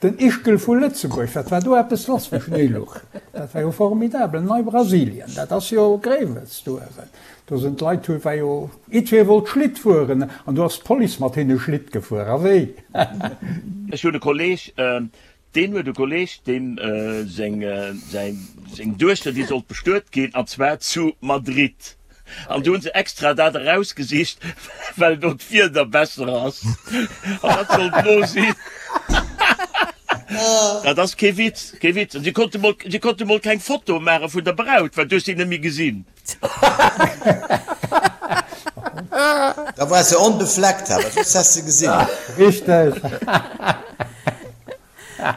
Den Ischgl vu Lëtzebuerg, wat war do eppes lass wéi Schnéi luch? Dat war jo formidabel. Nei-Brasilien, dat ass jo Gréiwels do uewen. Do sinn d'Leit, hu war jo, jiddweree wollt Schlitt fueren an do ass d'Police mat hinne Schlitt gefuer. A wéi? Ech hunn e Kolleg, deen huet e Kolleg, deem seng, säi, seng Duechter, déi sollt bestuet ginn, an zwar zu Madrid. An do hunn se extra dat erausgesicht, well do d'Wieder besser ass. An dat sollt elo sinn. Dat ass kee Witz, kee Witz. An si konnte mol, si konnte mol keng Foto maache vun der Braut, well du hues si net méi gesinn. Da war se onbefleckt, awer soss häss se gesinn. Richteg.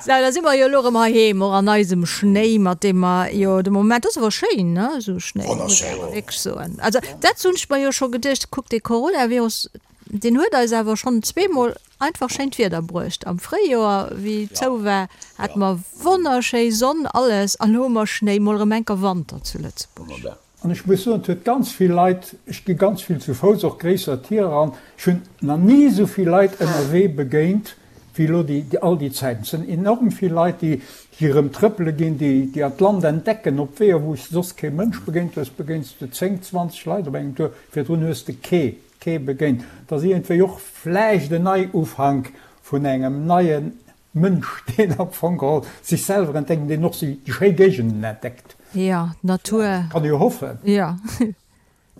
Sou, da si mer jo elo erëm heiheem, och an eisem Schnéi, mat deem mer jo de Moment, ass awer schéin, ne, esou Schnéi, muss ech awer wierklech soen. Also dat hunn ech mer jo scho geduecht, kuck, dee Coronavirus, deen huet eis awer schonn zweemol einfach schéint Wieder bruecht. Am Fréijoer, wéi zou war, hate mer wonnerschéi Sonn, alles, an elo hu mer Schnéi, mol erëm enker Wanter zu Lëtzebuerg. An ech muss soen, et huet ganz vill Leit, ech gi ganz vill zu Fouss, och gréisser Tier eran, ech hunn nach ni esou vill Leit ënnerwee begéint wéi elo déi all déi Zäiten. Et sinn enorm vill Leit, déi déi erëm trëppele ginn, déi déi an d'Land entdecken op Weeër, wou s de soss kee Mënsch begéint hues, begéins de 10, 20 Leit op engem Tour, virdrun hues de kee kee begéint. Et ass iergendwéi och vläicht en Neiufank vun engem neien Mënsch, deen am Fong geholl sech selwer entdeckt an deen och déi schéi Géigenden entdeckt. Jo, d'Natur. Kann ee jo hoffen. Jo.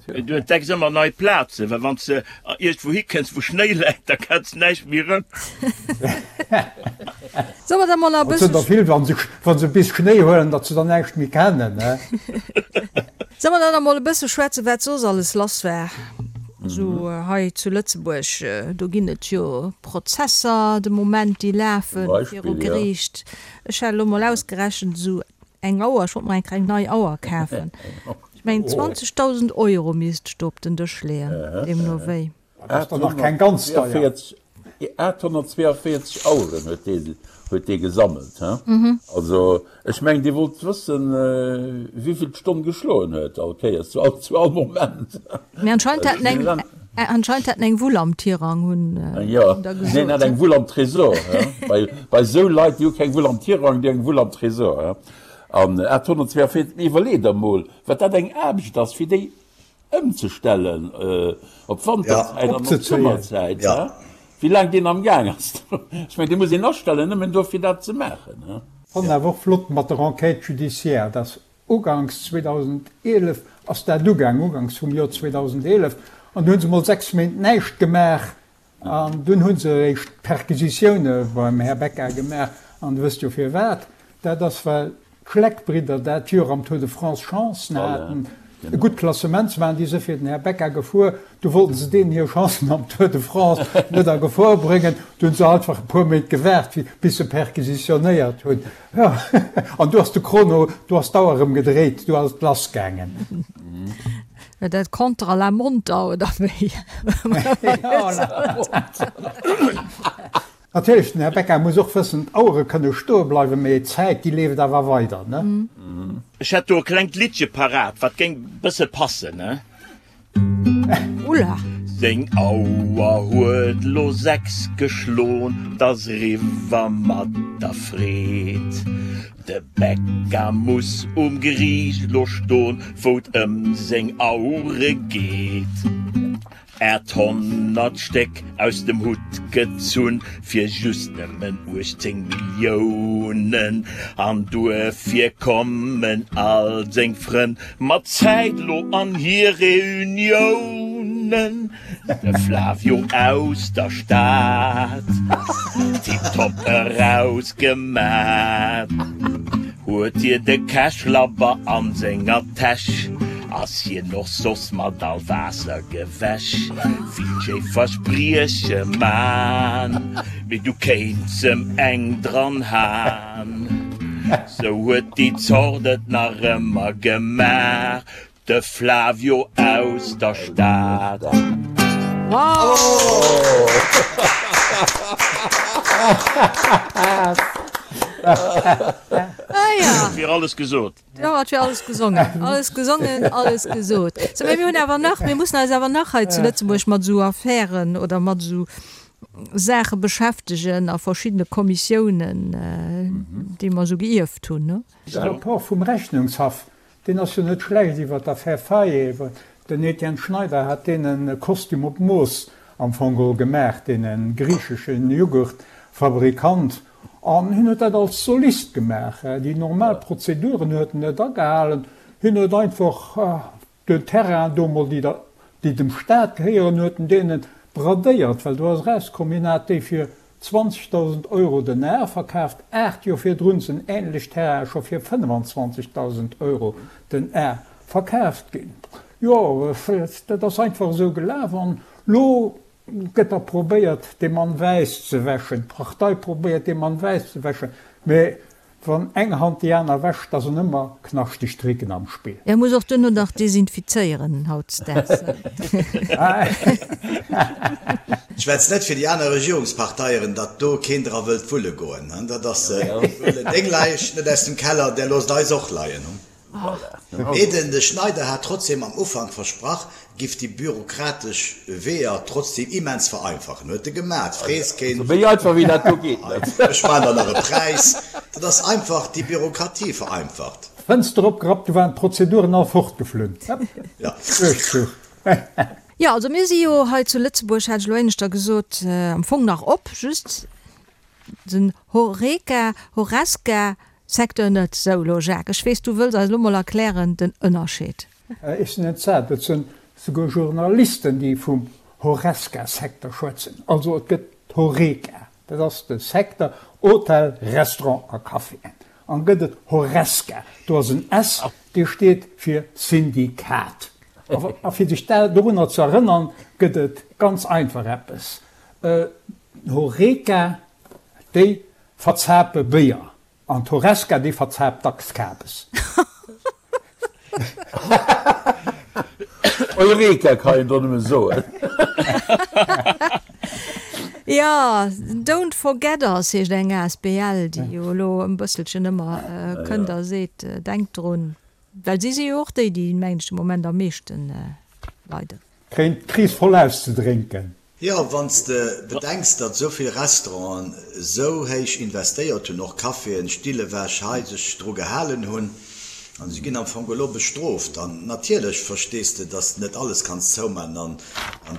Du entdecks ëmmer nei Plazen, well wann s de iergendwou hikënns, wou Schnéi läit, da kenns de näischt méi erëm. Solle mer da mol nach e Et sinn bësse. der vill, wa se, wa se bis Schnéi huelen, datt se dann näischt méi kennen, ne? Solle mer dann nach mol e bësse schwätzen, wat soss alles lass war? Esou hei zu Lëtzebuerg, do ginn et jo Prozesser de Moment, déi lafe viru Geriicht. Ech hat elo mol ausgerechent, esou eng Auer, ech wollt mer eng kleng nei Auer kafen, ech mengen 20.000 Euro misst ech do op den Dësch leeën, deemno wéi. Dat ass dann nach keng ganz deier. 842 Aueren huet dee, huet dee gesammelt, he? Also, ech mengen, Dir wollt wëssen, wéivill d'Stonn geschloen huet, all Kéiers, zu all, zu all Moment. Mee anscheinend hat en eng, anscheinend hat en eng Wull am Tirang, hunn Jo, der gesot. Neen, hat eng Wull am Tresor, he? Bei, bei esou Leit, déi hu keng Wull am Tirang, déi hu eng Wull am Tresor, he? An 842, mee iwwerlee der mol, wat dat eng Aarbecht ass, fir déi Ëmzestellen op d'Wanterzäit an op d'Summerzäit, wéi laang deen am Gaang ass. Ech mengen, dee muss een astellen, nëmmen do fir dat ze maachen. Fannen awer och flott mat der Enquête judiciaire, dass uganks 2011 ass dat ugaang, uganks vum Joer 2011, an du hunn se mol 6 Méint näischt gemaach, An dunn hu se eréischt Perquisitioune beim Här Becca gemaach. An Der wësst jo firwat. Dat ass, well d'Schleck-Bridder dat Joer am Tour de France Chancen haten, e gutt Klassement ze maachen. Déi si fir den Här Becca gefuer. Du wollten se deenen hir Chancen am Tour de France net a Gefor bréngen. Du hunn se einfach e puer Méint gewaart, bis se perquisitionéiert hunn. Jo, an du ass de Chrono, du ass d'Auer erëm gedréit, du ass et lassgaangen. Dat Contre la montre oder wéi? Natierlech, den Här Becca muss och wëssen, d'Auere kënne stoe bleiwen, mee d'Zäit, déi leeft awer weider, ne? Ech hätt do e klengt Liddche parat, wat géing bësse passen, ne? Ulla! Seng Auer huet lo 6 geschlon, 't ass eriwwer mat der Freed. De Becca muss um Geriicht lo ston, wou 't ëm seng Aure geet. 800 Stéck aus dem Hutt gezunn, fir just nëmmen 18 Milliounen. An duerfir kommen all seng Frënn mat Zäit lo an hir Reuniounen. De Flavio aus der Stad, tiptop erausgemat, huet hie de Cash-Labber an senger Täsch, ass hien och soss mat all Waasser gewäsch. Vill schéi Versprieche man, mee du kéints em eng dran han. Sou huet déi Zort et nach ëmmer gemaach. De Flavio aus der Stad. Wow! Ah ja. Et wier alles gesot. Jo, et wier alles gesongen. Alles gesongen, alles gesot. Sou, mee mir hunn awer nach, mir mussen eis awer nach hei zu Lëtzebuerg mat esou Affären oder mat esou Saache beschäftegen a verschiddene Kommissiounen, déi mer esou geierft hunn, ne? De Rapport vum Rechnungshaff Deen ass jo net schlecht iwwer d'Affär Faye. Den Etienne Schneider hat deenen e Kostüm op Mooss am Fong geholl gemaach, deene griicheschen Jughurtfabrikant, an hien huet dat als Solist gemaach. Déi normal Prozeduren huet en net agehalen, hien huet einfach den Terrain do mol, déi dem Staat gehéieren, huet en deene bradéiert, well do ass erauskomm, hien hat déi fir 20.000 Euro den Ar verkaaft, 8 Joer virdrun sinn änlech Terrainen scho fir 25.000 Euro den Ar verkaaft ginn. Jo, dat ass einfach esou gelaf an lo gëtt da probéiert, dee Mann wäiss ze wäschen, d'Partei probéiert, dee Mann wäiss ze wäschen, mä Wann eng Hand déi aner wäscht, da sinn ëmmer knaschteg Tricken am Spill. E muss och duerno nach desinfizéieren hautdesdaags. Schwätz net fir déi aner Regierungsparteieren, datt do keen dra wëllt wulle goen. Dat ass, huelen deng Läich net aus dem Keller, där loosst eis och leien. Mee den de Schneider hat trotzdem am Ufank versprach, giff déi bürokratesch Weeër trotzdem immens vereinfachen. Huet e gemat, frees keen. Méi einfach wéi dat do geet net. Ech maan der nach e Präis. Dat ass einfach déi Bürokratie vereinfacht. Fënster opgerappt, du waren d'Prozeduren all fortgeflunn. Duerchzuch. Jo, also mir si jo hei zu Lëtzebuerg, hat ech elo éineschter gesot, am Fong nach op, just den Horeca, Horesca, Secteur net. Sou, elo Jacques, ech weess, du wëlls eis elo mol erklären den Ënnerscheed. Ech sinn entsat. Et sinn souguer Journalisten, déi vum Horesca-Secteur schwätzen. Also et gëtt d'Horeca, dat ass de Secteur Hotel, Restaurant a Caféen. An gëtt et Horesca, do ass en S, dee steet fir Syndikat. A fir sech dorunner ze erënnern, gëtt et ganz einfach eppes, D'Horeca, déi verzape Béier. An d'Horesca, déi verzaapt dacks Kabes. Eureka kann een do nëmme soen. Jo, Don't Forget Us heescht eng asbl, déi jo elo e bësselchen ëmmer kënnt a seet, Denkt drun. Well si si jo och déi, déi, mengen ech, de Moment am meeschten leiden. Kréien d'Kris voll auszedrénken. Jo, wann s de bedenks, datt esou vill Restauranten esou héich investéiert hunn, och Caféen, Still ewech, hei sech dru gehalen hunn, an si ginn am Fong elo bestrooft. An natierlech verstees de, datt s de net alles kanns zouman an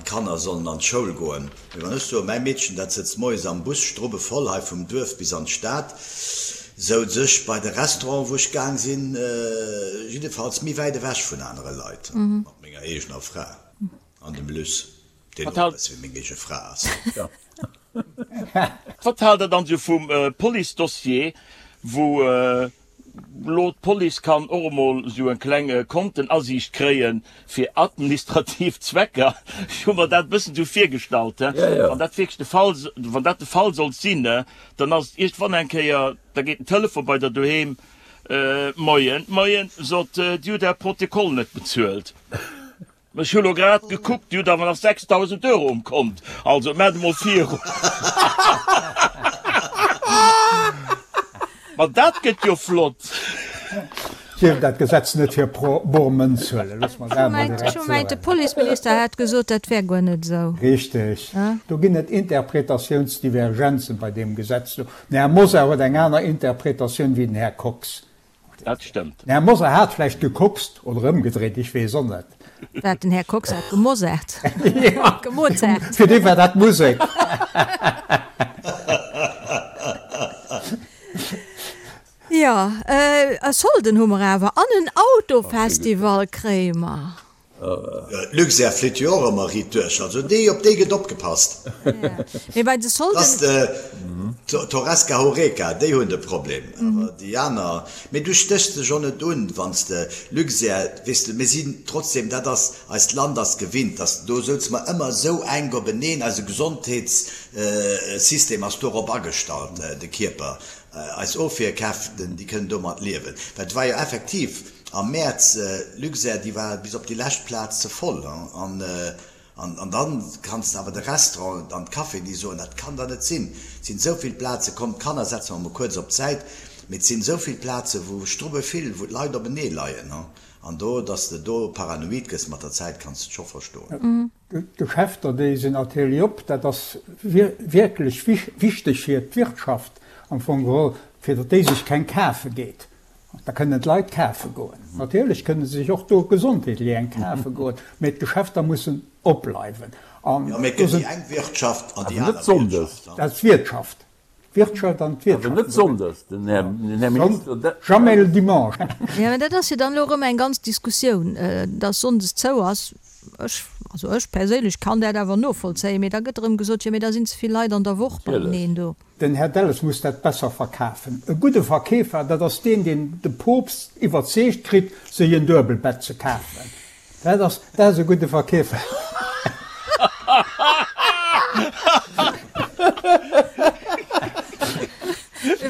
d'Kanner sollen an d'Schoul goen. Mee wann ech soen, mäi Meedchen, dat sëtzt moies am Bus strubbevoll hei vum Duerf bis an d'Stad, souz ech bei de Restauranten, wou ech gaang sinn, jiddefalls méi wäit ewech vun anere Leit, mat menger eegener Fra an dem Luss. Deen och e bësse wéi meng eege Fra ass. Wat haalt der dann sou vum Police-Dossier, wou lo d'Police kann och emol sou eng kleng Kontenasiicht kréien fir administrativ Zwecker? Ech hu mer dat e bëssen sou virgestallt, wann dat wierklech de Fall, wann dat de Fall sollt sinn, dann ass et iergendwann eng Kéier, da geet den Telefon bei der doheem, Moien, moien, sot, Dir hutt Är Protokoll net bezuelt. Ech hu lo grad gekuckt, Dir hutt awer nach 6.000 Euro um Kont, also maacht emol virun. Ma dat gëtt jo flott! Dierf dat Gesetz net fir bor Mënz huelen, looss mer dat emol direkt soen. Ech hu mengt, de Policeminister hätt gesot, dat wär guer net esou. Richteg. Do ginn et Interpretatiounsdivergenzen bei deem Gesetz do. Den Här Mosar huet eng aner Interpretatioun wéi den Här Kox. Dat stëmmt. Den Här Mosar hat vläicht gekokst, oder ëmgedréit, ech weess och net. Wat, den Här Kox hat gemosart? Gemozart. Fir dee war dat Musek. Jo, e Solden hu mer awer an en Autofestival kréie mer. D'Luxair flitt jo och ëmmer riit duerch, also déi, op déi gëtt opgepasst. Mee bei de Solden. Dass d'Horesca Horeca, déi hunn de Problem, awer déi aner, mee du stéchs dech och net un, wann s de Luxair, weess de, mir sinn trotzdem, dat ass, eist Land ass gewinnt, dass do souze mer ëmmer esou enk openeen, eise Gesondheetssystem ass dorop agestallt, de Kierper, eis Ofwierkräften, déi kënnen domat liewen, well et war jo effektiv, Am Mäerz, Luxair, déi war bis op déi lescht Plaz ze voll. An an dann kanns de awer de Restaurant an d'Caféen, déi soen, dat kann der net sinn, et sinn esou vill Plaze, komm d'Kanner setze mer mol kuerz op d'Säit, mee et sinn esou vill Plaze wou strubbe vill, wou d'Leit openee leien. An do, datt s de do paranoid gëss mat der Zäit, kanns de scho verstoen. D'Geschäfter, déi sinn natierlech op. Dat ass wierklech wichteg fir d'Wirtschaft am Fong geholl, fir datt déi sech keng kafe geet. Da kënnen d'Leit kafe goen. Natierlech kënne se sech och do gesondheetlech eng kafe goen, mä d'Geschäfter mussen opbleiwen. Jo, mä et gëtt déi eng Wirtschaft an déi aner Wirtschaft. Dat ass d'Wirtschaft. D'Wirtschaft an d'Wirtschaft. Awer net sonndes, den Här Minister. Jamais le dimanche. Jo, mä dat ass jo dann elo erëm eng ganz Diskussioun, dass sonndes zou ass. Ech, also ech perséinlech kann dat awer novollzéien, mee da gëtt erëm gesot, jo mee da sinn ze vill Leit an der Woch beieneen do. Den Här Delles muss dat besser verkafen. E gudde Verkeefer, dat ass deen, deen de Poopst iwwerzeegt kritt, sech en Duebelbett ze kafen. Dat ass, dat ass e gudde Verkeefer.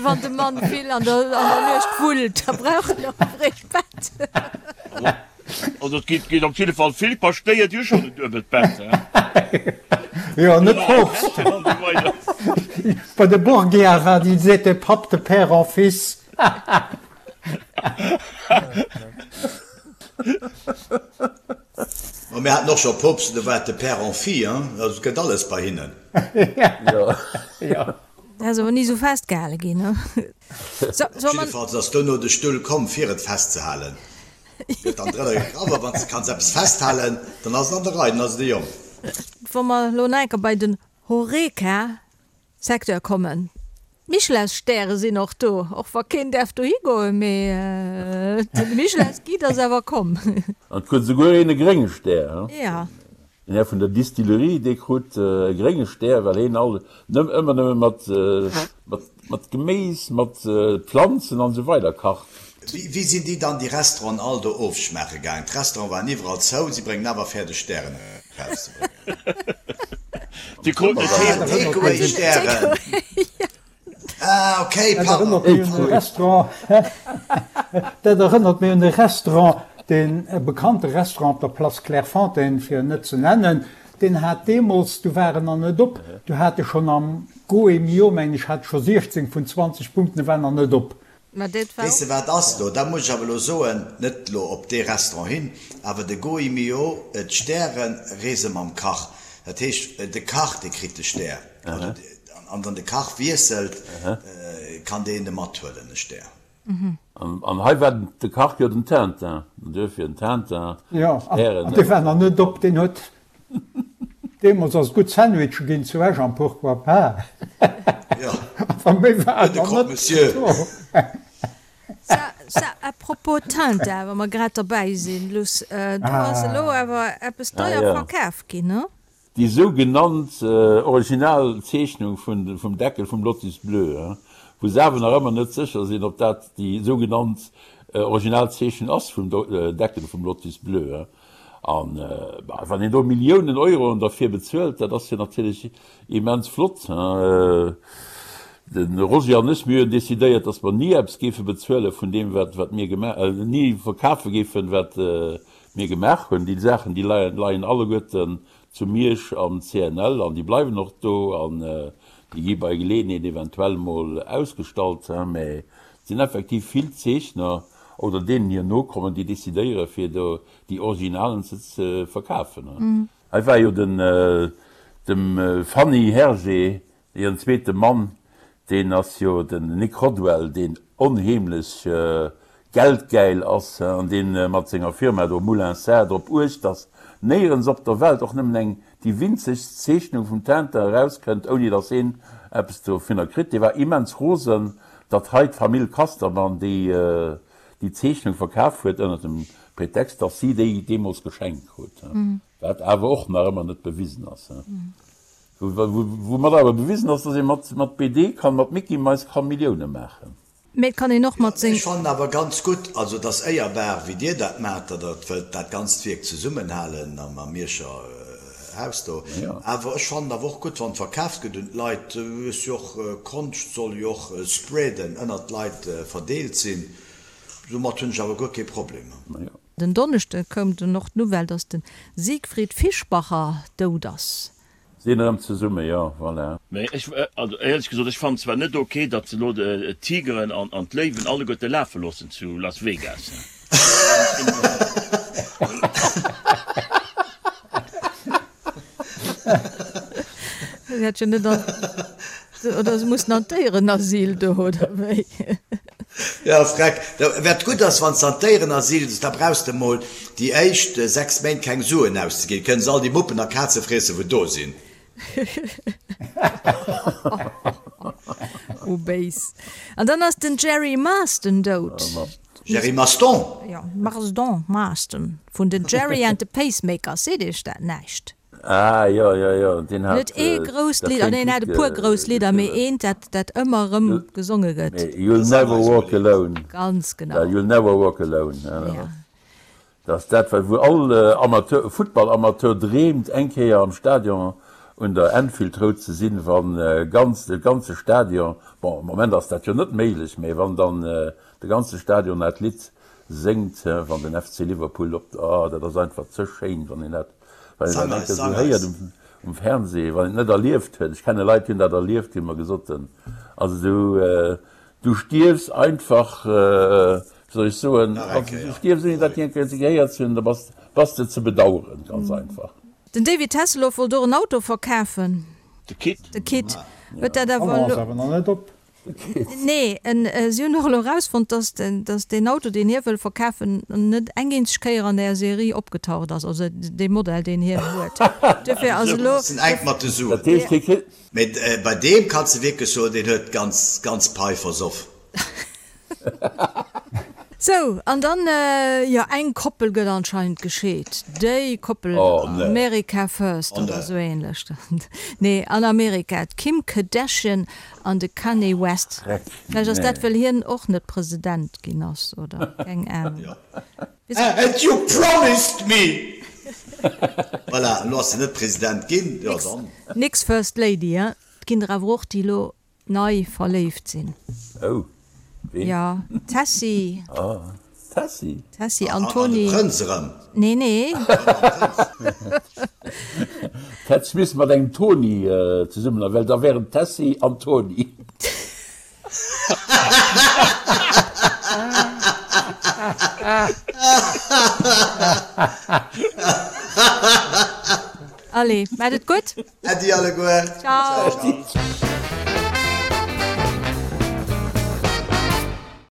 Wann de Mann vill an der, an der Nuecht wullt, da brauch en och e fréicht Bett. Also et geet, geet op jidde Fall vill Paschtéier, déi hu schonn en duebelt Bett, he? Jo, net Poopst. Bei de Borgia war, ils étaient papes de père en fils. Ma mir haten och scho Poopsten, do war et de Père en fille, hein? Also et gëtt alles bei hinnen. Jo. Dat ass awer ni esou festgehale ginn, ne? Jiddefalls ass dono de Stull komm, fir et festzehalen. Gëtt dann drënner gegraff, a wann s de kanns eppes festhalen, dann ass et an der Rei, dann ass et e Jong. Wa mer elo nach eng Kéier bei den Horeca Secteur kommen. D'Michelinstäre sinn och do, och wa keen däerf dohi goen, mee de Michelinsguide ass awer komm. An et krut esouguer een e grénge Stär, he? Ja. Den Här vun der Distillerie, dee krut e grénge Stär, well heen all nëmm ëmmer nëmme mat, mat, mat Geméis, mat Planzen an esou weider kacht. net. Wéi sinn déi dann déi Restauranten all do ofschmaache gaangen? D'Restauranten waren iwwerall zou, si bréngen awer fäerdeg Stären erauszebréngen. Déi kruten et heem. Take-away-Stären. Ah, okay, pardon. Dat erënnert mech un e Restaurant, deen e bekannte Restaurant op der Place Clairefontaine, fir en net ze nennen, deen hat deemools, du war en nach net op, du hat e schonn am Gault&Millau, mengen ech, hat e scho 16 vun 20 Punkten, e war nach net op. Mä dat war Weess de wat ass do? Dat muss ech awer elo soen, net elo op dee Restaurant hin, awer de Gault&Millau, d'Stäre reese mam Kach. Dat heescht, de Kach, dee kritt de Stär. An wann de Kach wiesselt, kann deen e mathuelen, e Stär. An hei war de Kach jo den Tintin, an duerfir den Tintin, Jo, an dee war nach net op, deen huet deemools ass et gutt Sandwiche ginn zu Esch am Pourquoi pas. Jo, Awer méi war de nach Croque net Monsieur. do. Sa, sa, à propos Tintin, wa mer grad derbäi sinn, Luss, do ass elo awer eppes deier verkaf ginn, ne? Déi sougenannt original Zeechnung vum Deckel vum Lotus Bleu, wou se awer nach ëmmer net sécher sinn, ob dat déi sougenannt original Zeechnung ass vum Deckel vum Lotus Bleu. An wann een do Milliounen Euroen derfir bezuelt, dat ass jo natierlech immens flott. De Roger an ech, mir hunn decidéiert, datt mer ni eppes géife bezuele vun deem, wat mir gemaach, ni verkafe géifen, wat mir gemaach hunn. Déi Saachen, déi leien alleguerten zu Miersch am CNL an déi bleiwen och do an déi gi bei Geleeënheet eventuell mol ausgestallt. Mä et sinn effektiv vill Zeechner oder deenen hir Nokommen, déi decidéiere fir do déi Originalen ze verkafen. Hei war jo den dem Fanny Hergé Hiren zweete Mann, deen ass jo den Nick Rodwell, deen onheemlech geldgäil ass an dee mat senger Firma do Moulin Sarr drop uecht, datt néierens op der Welt och nëmmen eng déi winzegst Zeechnung vum Tintin erauskënnt, ouni datt heen eppes dovunner kritt. Dee war immens rosen, datt hei d'Famill Casterman déi déi Zeechnung verkaf huet, ënner dem Pretext, datt si déi deemools geschenkt krut, wat awer och nach ëmmer net bewisen ass. Woumat awer bewisen ass, dass ee mat BD kann, mat Mickey-Mais kann Millioune maachen. Mee et kann een och mat seng. Ech fannen awer ganz gutt, also et ass éierbar wéi Dir dat maacht, datt Der wëllt dat ganzt Wierk zesummenhalen am Mierscher Haus do. Awer ech fannen awer och gutt, wann et verkaaft gëtt un d'Leit. Ass jo och, Konscht soll jo och spreaden, ënnert d'Leit verdeelt sinn. Domat hunn ech awer guer kee Problem. Den Donneschde koum dunn och d'Nouvelle, datt de Siegfried Fischbacher dout ass. Sinn erëm zesumme, jo, voilà. Mee ech, also éierlech gesot, ech fannen zwar net ok, datt se elo d'Tigeren an d'Léiwen alleguerte lafe loossen zu Las Vegas. Si hätt jo net an, oder se mussen an d'Déierenasyl do, oder wéi? Jo, freck. Wat gutt ass, wann s de an d'Déierenasyl gees, da brauchs de mol déi éischt 6 Méint keng Suen auszeginn. Kënne se all déi Muppen a Kaze friessen, wou do sinn. Oh béis. An dann ass den Jerry Marston dout. Jerry Maston? Jo, Marston, Marston vun den Gerry and the Pacemakers. Seet iech dat näischt? Ah jo, jo, jo, deen hat Huet ee grousst Lidd, ah nee, en hat e puer grouss Lidder, mee eent, dat, dat ëmmer erëm gesonge gëtt. You'll never walk alone. Ganz genau. You'll never walk alone. Ja. Dat ass dat, wat wou all Amateur, Futtballamateur dreemt, eng Kéier am Stadion un der Anfield Road ze sinn, wann ganz, de ganze Stadion, bon, am Moment ass dat jo net méiglech, mee wann dann de ganze Stadion dat Lidd séngt, wann den FC Liverpool op, oh, dat ass einfach ze schéin, wann een dat Wann een dat eng Kéier esou héiert um Fernseh, wann een et net erlieft huet, ech kenne Leit, déi hunn dat erlieft, déi hu mer gesot, also du, du stierfs einfach, wéi soll ech soen, also du stierfs ouni dat eng Kéier gehéiert ze hunn, da bass, bass de ze bedaueren, ganz einfach. Den David Hasselhoff wollt och en Auto verkafen. De Kit. De Kit huet dat awer elo. Nee, en si hunn och elo erausfonnt, dass dass deen Auto, deen hie wëll verkafen, net eng eenzeg Kéier an där Serie opgetaucht ass, also dee Modell, deen hien huet. Duerfir ass elo. Ass en enk mat de Suen. Dat heescht, hie kritt. Mee bei deem kanns de wierklech soen, deen huet d'ganz ganz Pai versoff. Sou, an dann, jo, eng Koppel gëtt anscheinend gescheet. Déi Koppel, America first oder esou ähnlech. Nee, an Amerika, d'Kim Kardashian an de Kanye West. Vläicht ass dat, well hien och net President ginn ass, oder? Keng Ahnung. And you promised me! Voilà, elo ass en net President ginn, jo dann. Nix First Lady, hein? Et ginn der awer och, déi elo nei verléift sinn. Oh, ween? Jo, d'Tessy. Oh, d'Tessy. Tessy an Tony. An de Prënz erëm. Nee, nee. D'Hätt missen mat engem Tony zesummen, well da wären d'Tessy an Tony. Allez, maat et gutt. Äddi alleguer. Ciao.